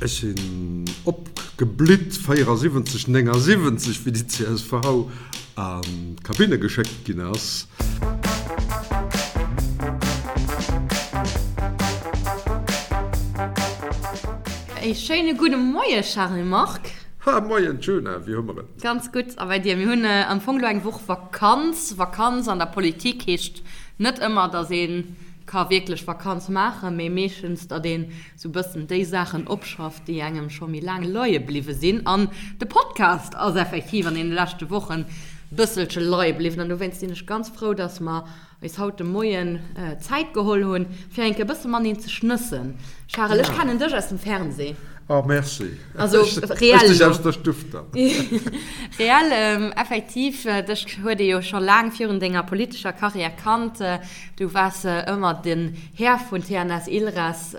Ech sinn opgeblitt 74, 79, wéi déi csv an d'Kabinne geschéckt ginn ass. E schéine gudde Moie Charel-Marc. Ha, Moien Djuna, wéi hu mer et? Ganz gutt, a bei dir? Mir hunn am Fong elo eng Woch Vakanz. Vakanz an der Politik heescht net ëmmer, datt ee ka wierklech Vakanz maachen, mee meeschtens, datt een sou bëssen déi Saachen opschafft, déi engem scho méi laang leie bliwwe sinn. An de Podcast ass effektiv an deene leschte Wochen bësselche leie bliwwen. An dowéinst sinn ech ganz frou, dass mer eis haut de Moien Zäit geholl hunn, fir eng Kéier e bësse mateneen ze schnëssen. Charel, ech kennen dech aus dem Fernseh. Oh, merci. Also reell Ech dech aus der Stuff dann. Reell, effektiv, dech huet ee jo scho laang virun denger politescher Karriär kannt. Du waars ëmmer den Här vun TNS Ilres,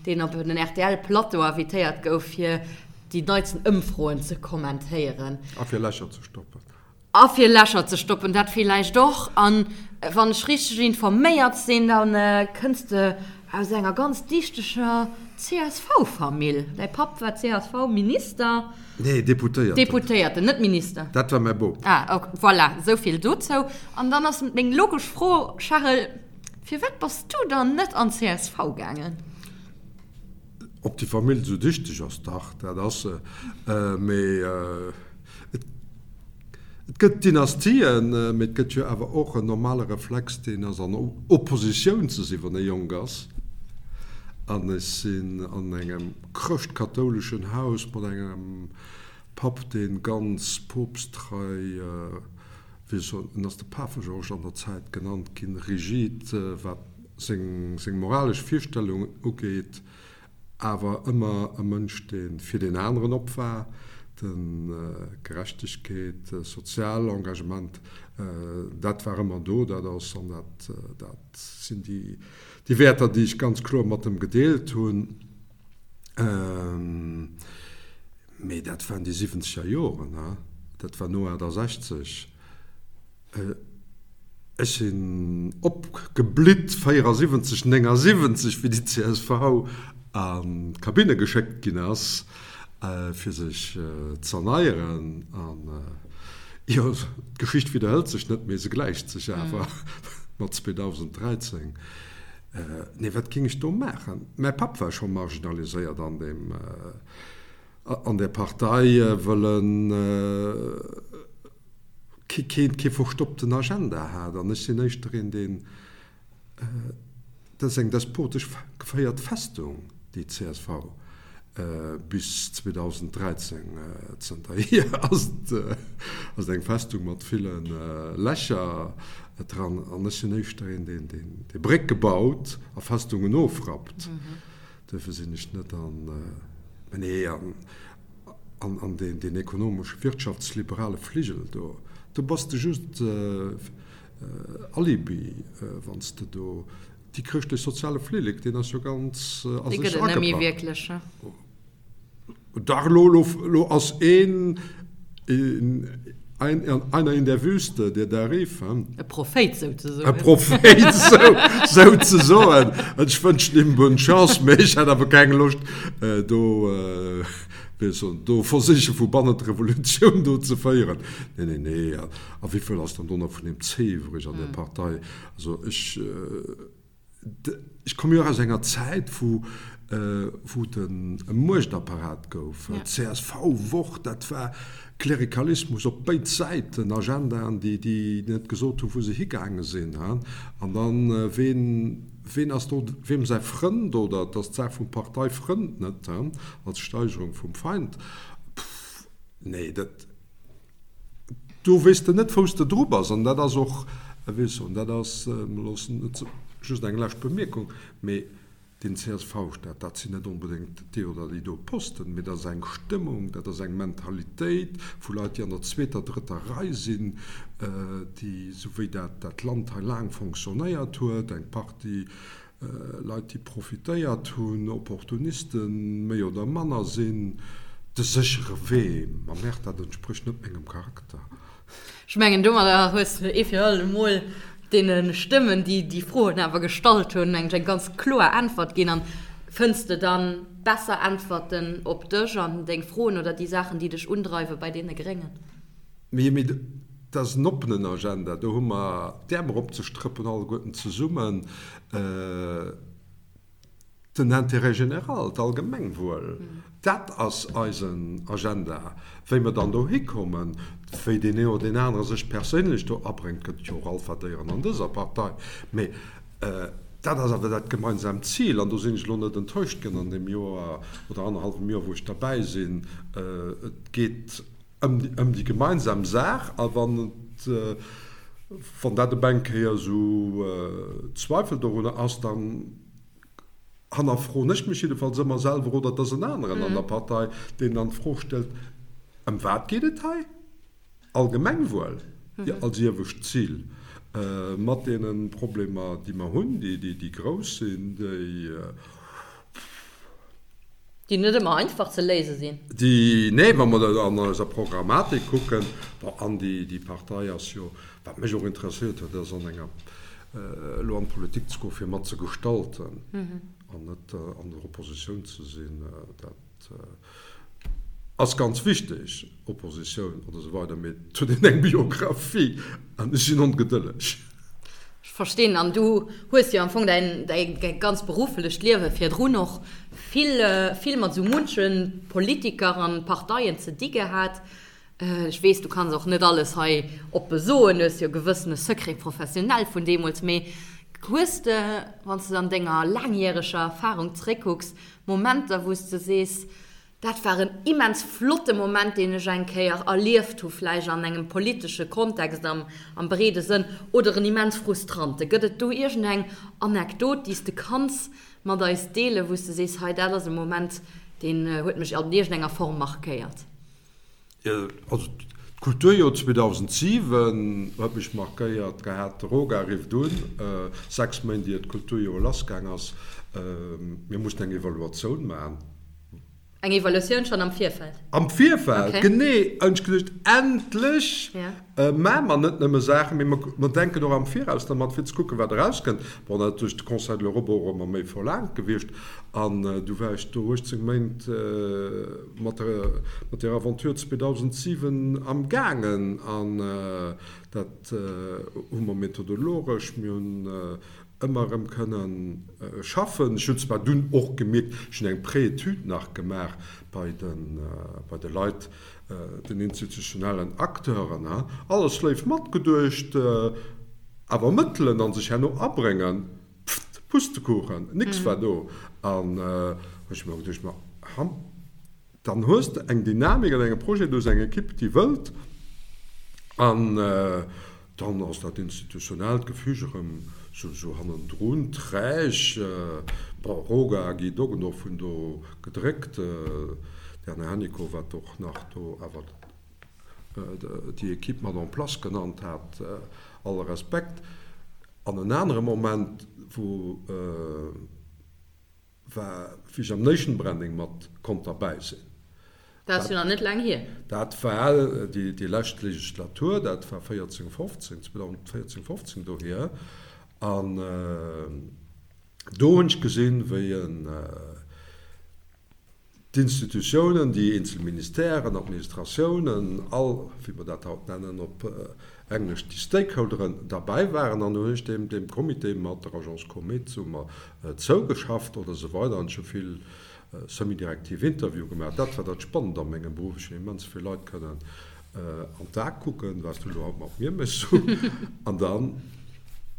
deen op den RTL-Plateau invitéiert gouf, fir déi neitsten Ëmfroen ze kommentéieren. A fir Lächer ze stoppen. A fir Lächer ze stoppen, dat villäicht och. An wann ech richteg informéiert sinn, da kënns de aus enger ganz dichteger CSV-Famill. Däi Papp war CSV-Minister. Nee, Deputéierten. Deputéierten, net Minister. Dat war mäi Bop. Ah, ok, voilà, esou vill dozou. An dann ass meng logesch Fro, Charel, firwat bass du dann net an d'CSV gaangen? Ob déi Famill esou dichteg ass? Dach, dat ass se. Mee et, et gëtt Dynastien, mee et gëtt jo awer och en normale Reflex, deen ass an Oppositioun ze sinn, wann ee jonk ass. An ech sinn an engem. Chrëscht-kathouleschen Haus mat engem Papp, dee ganz poopsttrei, wéi soen, en ass de Pafegeorges an der Zäit genannt ginn, rigid, wat seng seng moralesch Virstellungen ugeet, awer ëmmer e Mënsch, dee fir deen aneren op war, de Gerechtegkeet, sozial Engagement, dat war ëmmer do, dat ass an dat dat sinn déi Déi Wäerter, déi ech ganz kloer mat em gedeelt hunn, mee dat waren déi siwwenzeger Joren, dat war no 68. Ech sinn opgeblitt 74, 79, wéi déi csv an d'Kabinne geschéckt ginn ass, fir sech z'erneieren. An jo, d'Geschicht widderhëlt sech net, mee se gläicht sech awer mat 2013. Nee, wat géing ech do maachen? Mäi Papp war scho marginaliséiert an deem, an där Partei, wëll en kee, kee verstoppten Agenda hat. An ech sinn éischter een, deen, Dat ass eng despotesch geféiert Festung, déi csv bis 2013. Zënterhier ass et eng Festung mat ville Lächer dran. An ech sinn éischter een, deen déi Brécke baut a Festungen ofrappt. Duerfir sinn ech net an, mä nee, an deen ekonomesche, wirtschaftsliberale Fligel do. Do bass de just Alibi, wann s de do déi chrëschtlech-soziale Flillek, deen ass jo ganz a sech agepak. Dee gëtt et net méi wierklech, ne? Dach, elo, elo, elo ass een, ein, einer in der Wüste, der da rief, he? E Prophéit souzesoen. E Prophéit sou, souzesoen. Ech wënschen him bonne Chance, mee ech hätt awer keng Loscht, do, wéi ech soen, do versiche vu bannen d'Revolutioun do ze féieren. Nee, nee, nee. A wéivill ass dann do nach vun deem C iwwreg an där Partei? Also ech, ech komme jo och aus enger Zäit, wou, wou et e Muechtapparat gouf. Csv, Wort, dat war Klerikalismus op béid Säiten, Agendaen, déi, déi net gesot hunn, wou se higaange sinn. An dann, ween, ween ass do weem säi Frënd? Oder et ass d'Saach vum Parteifrënd, net als Steigerung vum Feind. Pff, nee, dat. Do weess de net, wou s de dru bass. An dat ass och, wéi ech soen, dat ass, loossen net just eng lescht Bemierkung, mee deen CSV-Staat, dat sinn net onbedéngt déi oder déi do Posten, mee dat ass eng Stëmmung, dat ass eng Mentalitéit vu Leit, déi an der zweeter, drëtter Rei sinn, déi, esou wéi dat dat Land hei laang fonctionnéiert huet, eng Partie Leit, déi profitéiert hunn, Opportunisten, méi oder manner, sinn de séchere Wee. Ma merde, dat entsprécht net mengem Charakter. Ech mengen, domadder hues de ee fir all emol deene Stëmmen, déi déi Froen awer gestallt hunn, eng ganz kloer Äntwert ginn. An. Fënns de dann besser Äntwerten op dech an deng Froen oder déi Saachen, déi dech undreiwen, bei deene Gréngen? Mee dat ass en oppenen Agenda. Do hu mer d'Äerm eropzestrëppen alleguerten zesummen. Den Intérêt général, d'Allgemengwuel, dat ass eisen Agenda. Wéi mer dann dohi kommen, wéi deen een oder deen anere sech perséinlech do abréngt, gëtt et jo och Alphadéieren an dëser Partei, mee dat ass awer dat gemeinsaamt Zil an do sinn ech elo net enttäuscht ginn an deem Joer oder annerhallwem Joer, wou ech derbäi sinn. Et geet ëm déi gemeinsam Saach a wann et, wann dat op eng Kéier esou Zweifel dorunner ass, dann hannerfroen ech mech jiddefalls ëmmer selwer oder et ass en aneren an der Partei, deen dann d'Fro stellt, Ëm wat geet et hei? Allgemengwuel als iewescht Zil, mat deene Problemer, déi mer hunn, déi grouss sinn, déi. Déi net ëmmer einfach ze léise sinn. Déi, nee, wa mer dat an eiser Programmatik kucken, bon, an déi, déi Partei ass jo, wat mech och interesséiert huet, ass an enger, elo an d'Politik ze goen, fir mat ze gestalten an net an der Oppositioun ze sinn. Dat ass ganz wichteg, Oppositioun oder esou weider, mee et huet een eng Biographie an ech sinn ongedëlleg. Ech verstinn. An du hues jo am Fong däin, däi ganz berufflecht Liewe virdrun och vill, vill mat esou munche Politiker an Parteien ze di gehat. Ech weess, du kanns och net alles hei oppe soen, du hues jo e gewëssene Secret professionnel vun deemools. Mee hues de, wann s de an denger laangjäreger Erfarung zeréckkucks, Momenter, wou s de sees, Dat war en immens flotte Moment, deen ech eng Kéier erlieft hu, vläicht an engem politesche Kontext am am breede Sënn, oder en immens frustrante. Gëtt et do iergendeng Anekdot, déi s de kanns mat eis deelen, wou s de sees, hei dat ass e Moment, deen huet mech an iergendenger Form markéiert? Also d'Kulturjoer 2007 huet mech markéiert gehat. De Roga rifft un, 6 Méint ier d'Kulturjoer lassgaang ass, mir mussen eng Evaluatioun maachen. Eng Evaluatioun schonn am Virfeld? Am Virfeld, genee. Hunn ech geduecht, endlech maache mer net nëmme Saachen, mee mer denken och am Viraus dermat, fir ze kucken, wat erauskënnt. Bon, dat ass duerch de Conseil de l'Europe och ëmmer méi verlaangt gewiescht. An du war ech do 18 Méint mat der Aventure 2007 amgaangen. An dat hu mer methodologesch, mir hunn ëmmer erëm kënnen schaffen. Ech hunn zwar dunn och gemierkt, ech hunn eng Pré-étude nach gemaach bei de, bei de Leit, den institutionellen Acteuren, alles léif matgeduecht, awer Mëttelen a sech herno abréngen, pfft, Pustekuchen, nix war do. An hu ech mer geduecht, ma ham, Dann hues de eng Dynamik an engem Projet, du hues eng Ekipp, déi wëllt, an dann ass dat institutionellt Gefüge erëm sou hannendrun träg. Bon, Roga a Guy Doggendorf hunn do gedréckt, d'Erna Hennicot, wat och nach do awer déi Ekipp mat en place genannt hat, alle Respekt. An en anere Moment, wou. War wéi ech am Nation Branding mat konnt derbäi sinn. Dat ass jo nach net laang hier. Dat war déi lescht Legislatur, dat war 14, 15, 2014, 15 dohier. An do hunn ech gesinn, wéi en D'Institutiounen, déi eenzel Ministèren, Administratiounen, all, wéi mer dat haut nennen op Englesch, déi Stakeholderen derbäi waren. An do hunn ech deem, deem Comité mat der Agence Comit hu mer zougeschafft oder esou weider an ech hu vill semi-direktiv Interviewe gemaach. Dat war dat Spannend a mengem Beruff, ech hunn immens vill Leit kënnen an d'A kucken, wat s du elo haut mat mir méchs. An dann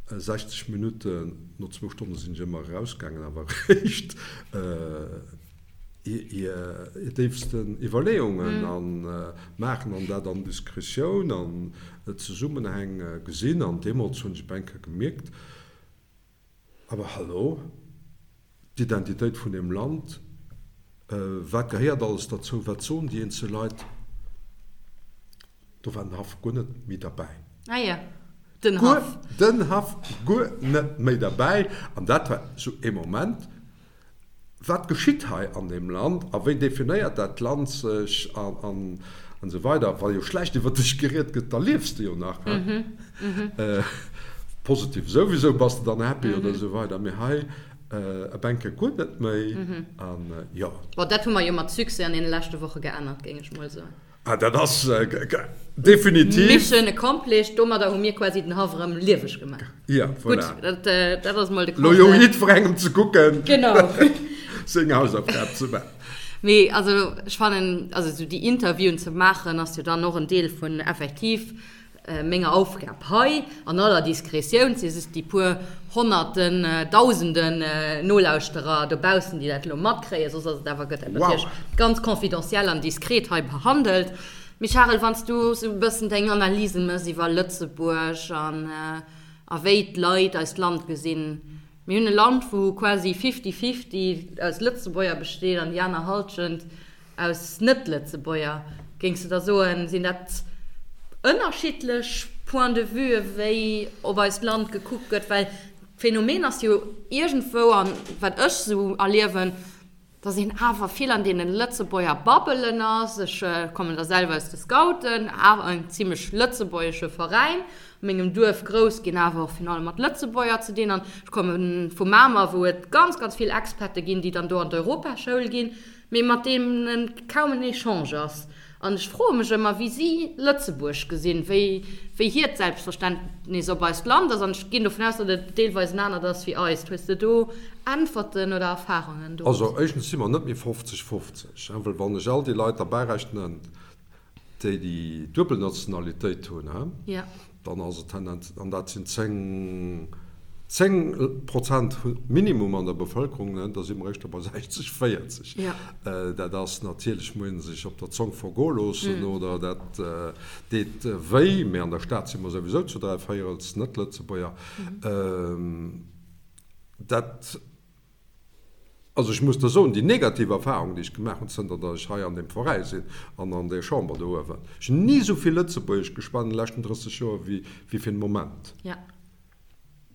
60 Minutten, no zwou Stonne sinn ech ëmmer erausgaangen, awer eréischt hir déifsten Iwwerleeungen a maachen an dat an Diskretioun an Zesummenhäng gesinn. An deemools hunn ech op eng Kéier gemierkt, awer hallo, d'Identitéit vun deem Land, wat gehéiert alles derzou, wat soen déi eenzel Leit, do war den Haff guer net méi derbäi. Ah jo, den Haff. Den Haff guer net méi derbäi. An dat war esou ee Moment, Wat geschitt hei an deem Land a wéi definéiert dat Land sech an esou weider. Wa jo schlecht iwwer dech geriet gëtt, da liefs de jo nach. Positiv souwisou, bass de dann happy oder esou weider. Mee hei. E Bänke guer net méi. An jo. Bon, dat hu mer jo mat Succès an deene leschte Woche geännert, géing ech mol soen. Ah, dat ass definitiv. Mission accomplished. Domadder hu mir quasi den Haff erëm lieweg gemaach. Ja, voilà. Gutt, dat ass mol de Constat. Lo jo jiddwerengem ze kucken. Genau. Seng Hausaufgab ze maachen. Mee also ech fannen, also esou déi Interviewen ze maachen, ass jo dann och en Deel vun effektiv Menger Aufgab hei, an aller Diskretioun, si just déi puer Honnerten, Dausenden Nolauschterer dobaussen, déi dat elo matkréien, soss ass et awer, gëtt dat natierlech ganz confidentiel an diskret hei behandelt. Mee Charel, wann s du esou e bëssen deng Analysen méchs iwwer Lëtzebuerg an a wéi d'Leit eist Land gesinn, mir hunn e Land, wou quasi fifty-fifty aus Lëtzebuerger besteet an déi aner Halschent Aus Net-Lëtzebuerger, géings de da soen, sinn dat ënnerschiddlech Points de vue wéi op eist Land gekuckt gëtt? Well d'Phänomen ass jo iergendwou, an wat ech esou erliewen, datt een awer vill an deene Lëtzebuerger Bubbelen ass. Ech kommen da selwer aus de Scouten, awer en zimlech lëtzebuergesche Veräin, a mengem Duerf grouss ginn, awer och virun allem mat Lëtzebuerger ze dinn. An ech komme vu Mamer, wou et ganz, ganz vill Expate ginn, déi dann do an d'Europaschoul ginn. mee mat deenen kaum en Echange ass. An ech froe mech ëmmer, wéi si Lëtzebuerg gesinn, wéi, wéi hiert Selbstverständnis op eist Land ass. An ech ginn dovun aus, datt et deelweis en anert ass wéi eist. Hues de do Äntwerten oder Erfarungen do? Also éischtens si mer net méi 50, 50, well wann ech all déi Leit derbärechnen, déi déi duebel Nationalitéit hunn, dann ass et tendenz, an dat sinn 10, 10 Prozent minimum an der Bevëlkerung, da si mer éischter bei 60, 40. Dat ass natierlech, muss ee sech op der Zong vergoe loossen oder dat deet wéi, mee an der Stad si mer souwisou zu dräivéierels Net-Lëtzebuerger. Dat. Also ech muss der soen, déi negativ Erfahrung, déi ech gemaach hunn, zënter datt ech hei an deem Veräi sinn an an där Chamber do uewen, ech hunn ni esou vill Lëtzebuergesch geschwat an de leschten 30 Joer wéi fir den Moment.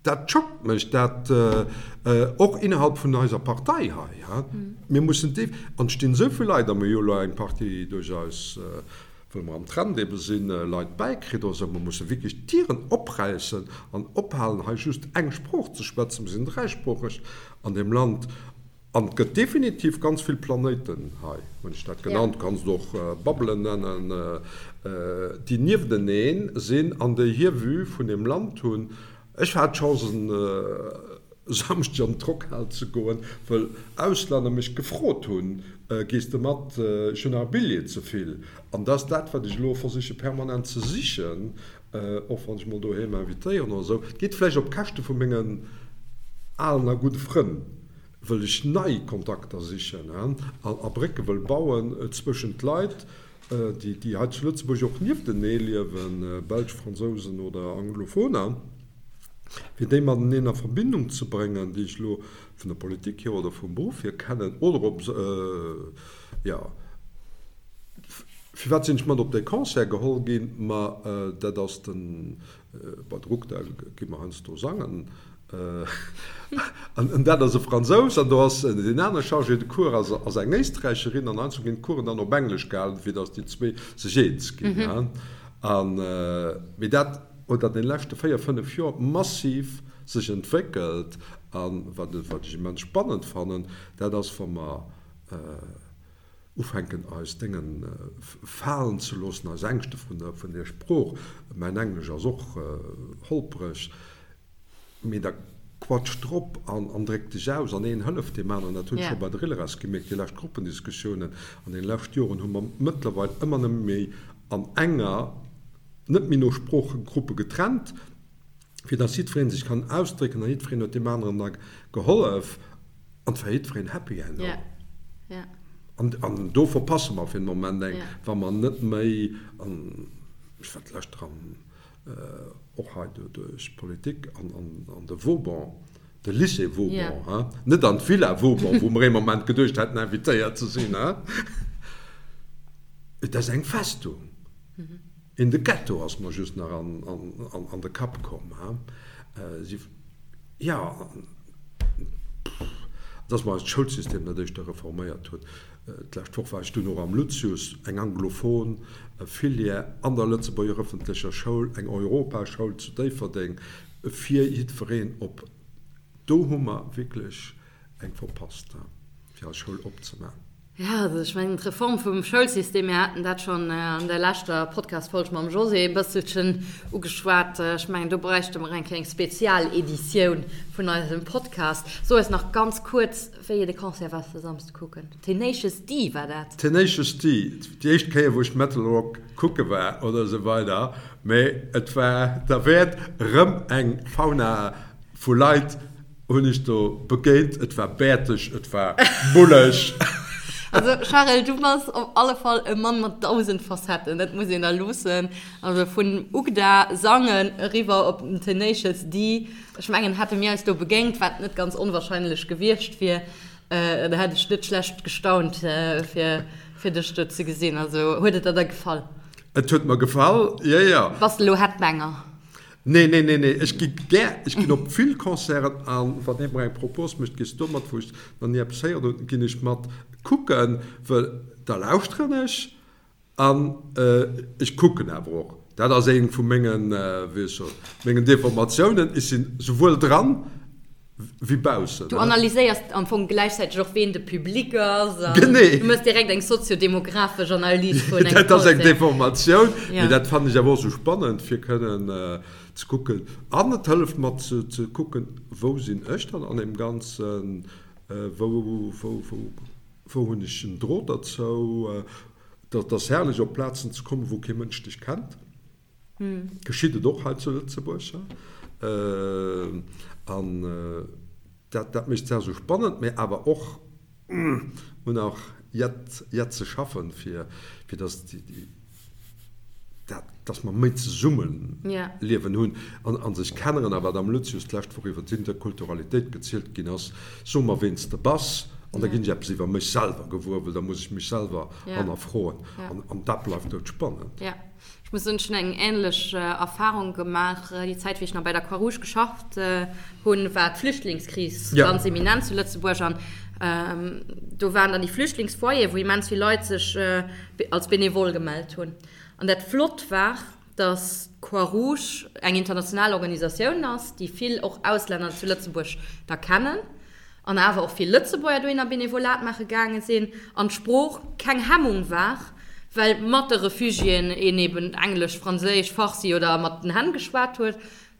Dat schockt mech, dat och innerhalb vun eiser Partei hei. Mir mussen def, an et stinn esou vill Leit, a mir hu jo elo eng Partie duerch eis wëll mer am Trend ebe sinn, Leit bäikritt oder esou. Mer musse wierklech d'Dieren opräissen an ophalen, hei just eng Sprooch ze schwätzen. Mer sinn dräisproocheg an deem Land an et gëtt definitiv ganz vill Planéiten hei, hunn ech dat genannt, kanns et och Bubbelen nennen, déi niefteneen sinn an déi hir Vue vun deem Land hunn. Ech hat d'Chance en Samschdeg an d'Rockhal ze goen, wëll Auslänner mech gefrot hunn, Gees de mat, ech hunn nach e Billjee ze vill. An dat ass dat, wat ech elo versiche permanent ze sichen, och wann ech mol doheem invitéieren oder esou. Et geet vläicht op Käschte vu mengen alen a gudde Frënn, wëll ech nei Kontakter sichen a Brécke wëll bauen zwëschent d'Leit, déi hei zu Lëtzebuerg och nieftenee liewen, Belsch, Fransousen oder Anglophoner, fir déi mateneen a Verbindung ze bréngen, déi ech elo vun der Politik hier oder vum Beruff hier kennen oder op, jo, firwat sinn ech mat op dee Concert geholl ginn? Ma dat ass den, bei de Ruckda gi mer heiansdo sangen, An dat ass e Fransous an do ass deen anere Chargé de cours ass ass eng Éisträicherin an heiansdo ginn d'Coursen dann op Englesch gehalen, fir datt déi zwee sech eens ginn. An, mee dat huet an deene leschte 4, 5 Joer massiv sech entwéckelt an wat wat ech immens spannend fannen, dat ass wa mer, Ufänken eis Déngen falen ze loossen, eis Ängschte vun der Sprooch, mäin Englesch ass och holpreg, mee da quatsch drop an dréck dech aus an een hëlleft deem aneren. Dat hunn ech scho bei der Ilres gemierkt, déi lescht Gruppendiskussiounen an deene lescht Joren hu mer mëttlerweil ëmmer nëmme méi an enger, net méi no Sproochegruppe getrennt, fir dass jiddweree sech kann ausdrécken a jiddwereen huet deem aneren da gehollef an et war jiddwereen happy herno. An, an do verpasse mer fir den Moment eng, wa mer net méi, an ech war d'lescht dran och hei duerch d'Politik, an, an, an de Vauban, de Lycée Vauban, hein, net an d'Villa Vauban, wou mer ee Moment geduecht hätten invitéiert ze sinn, hein, et ass eng Festung. In de Ghetto ass mer just nach an de Kapp komm. Jo, dass mer eist Schoulsystem net éischter reforméiert hunn. D'lescht Woch war ech dunn och am Lucius, eng anglophon Filière an der Lëtzebuerger ëffentlecher Schoul, eng Europaschoul zu Déifferdeng fir jiddwereen op. Do hu mer wierklech. eng verpasst, fir eis Schoul opzemaachen. Jo, also ech mengen d'Reform vum Schoulsystem, mir haten dat schonn an der leschter Podcast-Folg mam José e bësselchen ugeschwat, ech mengen do bräichte mer eng kleng Spezialeditioun vun eisem Podcast. So eis nach ganz kuerz, wéi de Concert war de Samsde kucken. Tenacious D war dat? Tenacious D, déi éischt Kéier wou ech Metal Rock kucke war oder esou weider, mee et war derwäert, erëm eng Fauna vu Leit hunn ech do begéint. Et war bäerteg, et war bulleg. Also Charel, du bass op alle Fall e Mann mat 1000 Facetten, dat muss een der loossen. Also vun Ugda sangen eriwwer op den Tenacious D. Ech mengen, hätte mir eis do begéint, wat net ganz onwahrscheinlech gewiescht wier, da hätt ech net schlecht gestaunt, fir fir dech do ze gesinn. Also huet et der da gefall? Et huet mer gefall, jo jo. Bass de elo Headbanger? Nee, nee, nee, nee, ech gi gär, ech ginn op vill Concerten an wann ee mer eng Propos mécht, gees du mat, wou ech nach ni eppes héieren hunn, ginn ech mat kucken, well da lauschteren ech an ech kucken awer och. Dat ass eng vu mengen, wéi ech soen, mengen Deformatiounen, ech sinn souwuel dran wéi baussen. Du analyséiers am Fong gläichzäiteg och, ween de Public ass an du méchs direkt eng soziodemographesch Analys vun engem Concert. Dat ass eng Deformatioun, mee dat fannen ech awer och esou spannend, fir kënnen ze kucken. An et hëlleft mer ze kucken, wou sinn ech dann an deem Ganzen, wou, wou, wou, wou hunn ech en Drot derzou. Dat ass herrlech, op Plazen ze kommen, wou kee Mënsch dech kennt. Geschitt et och hei zu Lëtzebuerg. An dat, dat mécht d'Saach esou spannend, mä awer och, hunn auch jett, jett ze schaffen, fir, fir dass déi, dat, dass mer méi Zesummeliewen hunn an, a sech kenneren. A wat am Lucius d'lescht Woch iwwer d'Interkulturalitéit gezielt ginn ass, So mer, ween s de bass, an da ginn ech eppes iwwer mech selwer gewuer, well da muss ech mech selwer hannerfroen. An, an dat bleift doudspannend. Ech muss soen, ech hunn eng änlech Erfahrung gemaach. Déi Zäit, wéi ech nach bei der Croix-Rouge geschafft hunn, war d'Flüchtlingskris ganz eminent zu Lëtzebuerg. An do waren dann déi Flüchtlingsfoyeren, wou immens vill Leit sech als Benevole gemellt hunn. An dat Flott war, dass d'Croix-Rouge eng international Organisatioun ass, déi vill och Auslänner zu Lëtzebuerg da kennen. An awer och vill Lëtzebuerger dohinner Benevolat maache gaange sinn an d'Sprooch keng Hemmung war, well mat de Refugiéen een eben Englesch, Franséisch, Farsi oder mat den Hänn geschwat huet,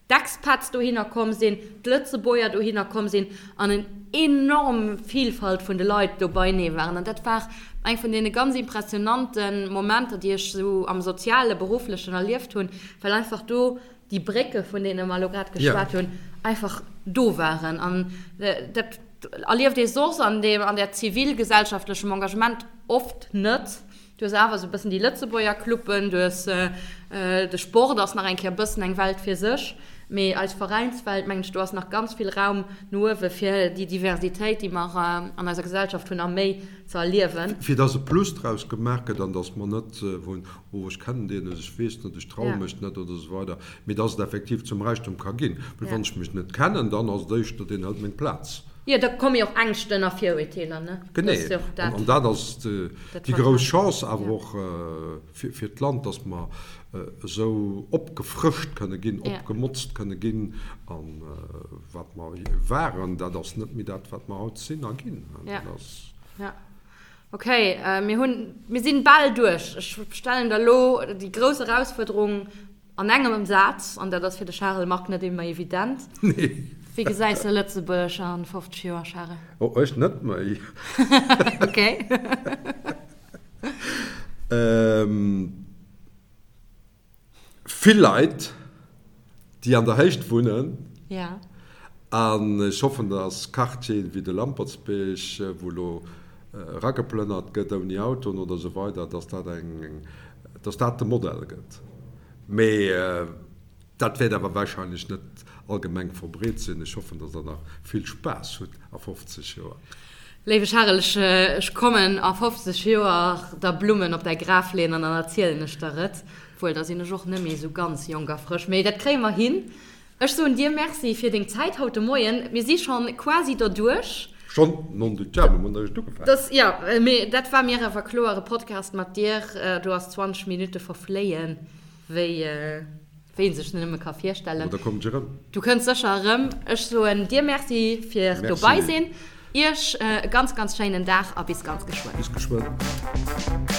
d'Expats dohinner komm sinn, d'Lëtzebuerger dohinner komm sinn an en enorm Vielfalt vun de Leit do beinee waren. An dat war eng vun deene ganz impressionante Momenter, déi ech esou am soziale, berufflechen erlieft hunn, well einfach do déi Brécke vun deene mer elo grad geschwat hunn, einfach do waren. An dat erlieft ee soss an deem, an där zivilgesellschaftlechem Engagement oft net. Du hues awer esou e bëssen déi Lëtzebuerger Cluben, du hues de Sport ass nach eng Kéier e bëssen eng Welt fir sech, mee eis Veräinswelt, mengen ech, do ass nach ganz vill Raum no uewe fir déi Diversitéit, déi mer an eiser Gesellschaft hunn, a méi ze erliewen. Fir dass e Plus draus gemaach gëtt an dass mer net wou oh ech kennen deen net, ech weess net, ech traue mech net oder esou weider, mee dass et effektiv zum Räichtum ka ginn. Well wann ech mech net kennen, dann ass et éischter, deen hëlt meng Plaz. Jo, da komme jo och Ängschten a Virurteeler, ne? Genee. An dat ass déi grouss Chance awer och fir d'Land, dass mer esou opgefrëscht kënne ginn, opgemotzt kënne ginn. A wat mer waren, dat ass net méi dat, wat mer haut sinn a ginn. Dat ass. Ok, mir hunn, mir sinn bal duerch. Ech stellen der elo déi grouss Erausfuerderung an engem Saz, an dat ass fir de Charel Margue net ëmmer evident. Nee. Wéi gesäis de Lëtzebuerg a 50 Joer, Charel? Oh, ech net méi. Ok. Vill Leit, déi an der Héicht wunnen. Ja. An ech hoffen, dass Quartieren wéi de Lampertsbierg, wou elo erageplënnert gëtt ouni Autoen oder esou weider, dass dat eng, dass dat de Modell gëtt. Mee dat wäert awer wahrscheinlech net allgemeng verbreet sinn. Ech hoffen, dass Der nach vill Spaass hutt a 50 Joer. Léiwe Charel, ech kommen a 50 Joer der Blummen op däi Graf leeën an dann erzielen ech der et. Obwuel, da sinn ech och net méi esou ganz jonk a frësch. Mee dat kréie mer hin. Ech soen dir Merci fir deng Zäit haut de Moien. Mir si schonn quasi derduerch. Schonn? Non du diable, mir hunn eréischt ugefaangen. Dass, jo, mee dat war mir awer kloer, e Podcast mat dir, do ass 20 Minutte verfléien wéi wéi een sech nëmme ka virstellen. Mä da kommen ech erëm. Du kënns sécher erëm. Ech soen dir Merci fir dobei sinn. Iech e ganz, ganz schéinen Dag a bis ganz geschwënn. Bis geschwënn.